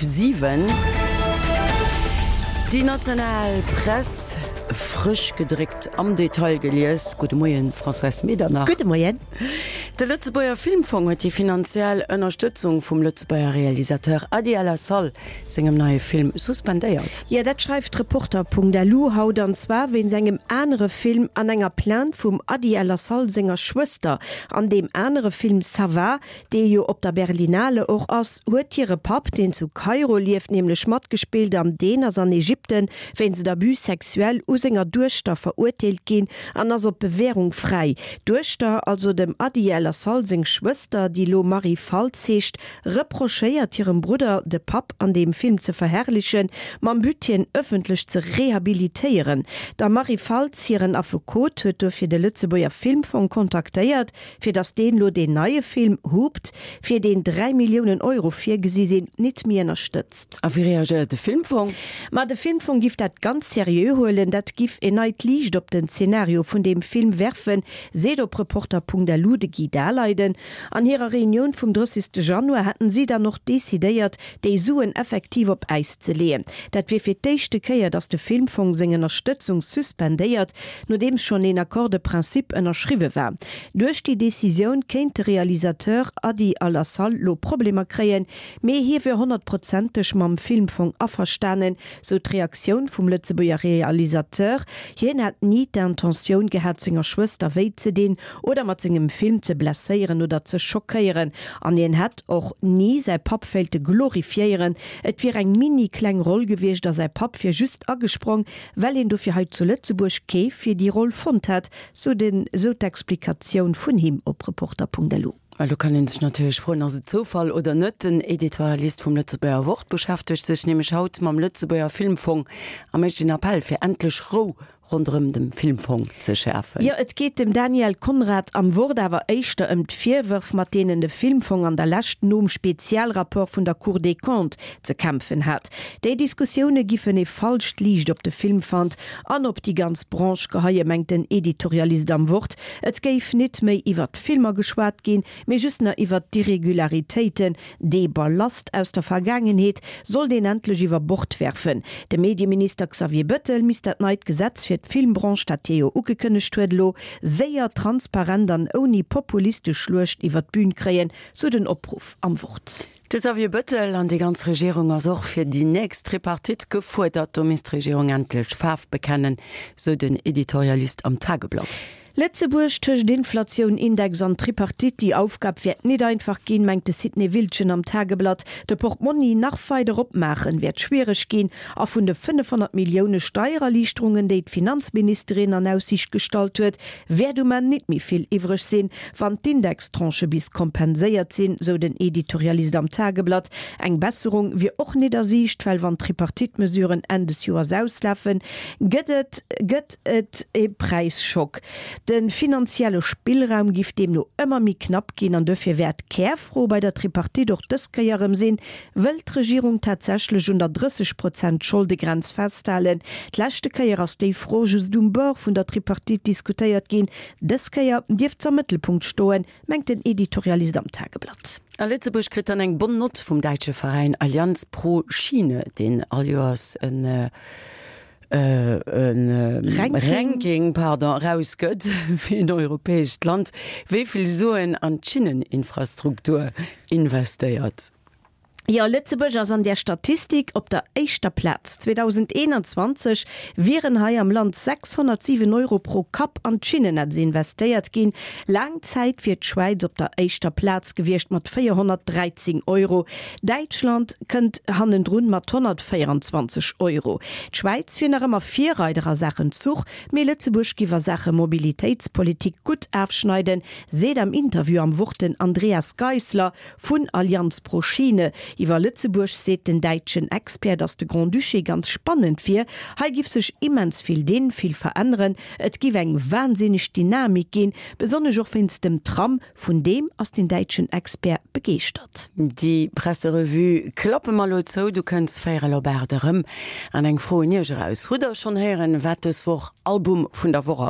7. Déi national Press, frësch gedréckt, am Detail gelies. Gudde Moien, Françoise Medernach. Gudde Moien. De Lëtzebuerger Filmfong huet déi finanziell Ënnerstëtzung vum Lëtzebuerger Realisateur Adi El Assal sengem neie Film suspendéiert. Jo, dat schreift Reporter.lu haut, an zwar wéinst engem anere Film an enger Plainte vum Adi El Assal senger Schwëster. An deem anere Film Ça va, dee jo op der Berlinale och ass, huet hire Papp, deen zu Kairo lieft, nämlech matgespillt an deen ass an Ägypten wéinst Abus sexuel u senger Duechter verurteelt ginn an ass op Bewährung fräi. D'Duechter, also dem Adi El Assal seng Schwëster, déi lo Marie Faltz heescht, reprochéiert hirem Brudder, de Papp an deem Film ze verherrlichen, mam But hien ëffentlech ze rehabilitéieren. Der Marie Faltz hiren Affekot huet dofir de Lëtzebuerger Filmfong kontaktéiert, fir datt deen lo deen neie Film Hooped, fir deen 3 Milliounen Euro virgesi sinn, nit méi ënnerstëtzt. A wéi reagéiert de Filmfong? Ma de Filmfong giff dat ganz seriö huelen, dat giff en neit Liicht op den Zenario vun deem Film werfen, seet op Reporter.lu de Guy Daleiden. An hirer Reunioun vum 30. Januar hätten si dann och decidéiert, déi Suen effektiv op Äis ze leeën. Dat wier fir d'éischte Kéier, datt de Filmfong seng Ënnerstëtzung suspendéiert, nodeems schonn een Accord de principe ënnerschriwwe war. Duerch déi Decisioun kéint de Realisateur Adi Al-Assal lo Problemer kréien, mee hie wier honnertprozenteg mam Filmfong averstanen, sou d'Reaktioun vum Lëtzebuerger Realisateur. Hien hätt ni d'Intentioun gehat, senger Schwëster wéi ze dinn oder mat sengem Film ze blesséieren oder ze schockéieren. An hien hätt och ni säi Papp wéilte glorifiéieren. Et wier eng mini kleng Roll gewiescht a säi Papp wier just agesprong, well een dofir hei zu Lëtzebuerg kee fir déi Roll fonnt hätt, sou den sou d'Explikatioun vun him op Reporter.lu. Well do kann ee sech natierlech froen, ass et Zoufall oder net? Den Editorialist vum Lëtzebuerger Wort beschäftegt sech nämlech haut mam Lëtzebuerger Filmfong a mécht een Appell fir endlech Rou ronderëm dem Filmfong ze schäerfen. Jo, et geet dem Daniel Conrad am Wort awer éischter ëm d'Virwërf, mat deenen de Filmfong an der Lescht nom Spezialrapport vun der Cour des Comptes ze kämpfen hat. Déi Diskussioune giffen ee falscht Liicht op de Filmfund an op déi ganz Branche geheien, mengt den Editorialist am Wort. Et géif nit méi iwwert d'Filmer geschwat ginn, mee just nach iwwert d'Irregularitéiten. Dee Ballast aus der Vergaangenheet sollt een endlech iwwer Bord werfen. De Medieminister Xavier Bettel misst dat neit Gesetz fir d'Filmbranche, dat hie jo ugekënnegt huet, elo séier, transparent an ouni populistesch Schluecht iwwer d'Bün kréien, sou den Opruff am Wort. De Xavier Bettel an déi ganz Regierung ass och fir déi nächst Tripartite gefuerdert. Do misst d'Regierung endlech Faarf bekennen, sou den Editorialist am Tageblatt. Lëtzebuerg tëscht Inflatioun, Index an Tripartite, déi Aufgab wäert nit einfach ginn, mengt de Sidney Wildgen am Tageblatt. De Portmonni nach weider opmaachen wäert schwiereg ginn a vun de 500 Millioune Steiererliichterungen, déi d'Finanzministerin an Aussiicht gestallt huet, wäert um Enn nit méi vill iwwreg sinn, wann d'Indextranchë bis kompenséiert sinn, sou den Editorialist am Tageblatt. Eng Besserung wier och nit a Siicht, well wann d'Tripartite-Mesuren Enn des Joers auslafen, gëtt et gëtt et e Präisschock. De finanzielle Spillraum giff deemno ëmmer méi knapp ginn an duerfir wäert d'Kärfro bei der Tripartite och dës Kéier erëm sinn, Wëll d'Regierung tatsächlech un der 30 Prozent Scholdegrenz festhalen? D'leschte Kéier ass déi Fro just um Bord vun der Tripartite diskutéiert ginn. Dës Kéier dierft s'am Mëttelpunkt stoen, mengt den Editorialist am Tageblatt. A Lëtzebuerg kritt dann eng bonne Note vum däitsche Veräin Allianz pro Schiene, deen all Joers en Ranking pardon, erausgëtt, wéi en europäescht Land wéi vill Suen an d'Schinneninfrastruktur investéiert. Jo, Lëtzebuerg ass an där Statistik op der éischter Plaz. 2021 wieren hei am Land 607 Euro pro Kapp an d'Schinnennetz investéiert ginn. Laang Zäit wier d'Schwäiz op der éischter Plaz gewiescht mat 413 Euro. Däitschland kënnt hannendrun mat 124 Euro. D'Schwäiz wier nach ëmmer Virreider a Saachen Zuch, mee Lëtzebuerg giff a Saache Mobilitéitspolitik gutt afschneiden, seet am Interview am Wort den Andreas Geissler vun Allianz pro Schiene. Iwwer Lëtzebuerg seet den däitschen Expert, datt de Grand-Duché ganz spannend wier. Hei giff sech immens vill dinn, vill veränneren. Et giff eng wahnsinneg Dynamik ginn, besonnesch och wéinst dem Tram. Vun deem ass den däitschen Expert begeeschtert. Déi Presserevue klappe mer elo zou. Du kënns véierel op 8 erëm. An eng Fro un Iech eraus, Hutt der schonn héieren, wat dës Woch Album vun der Woch ass?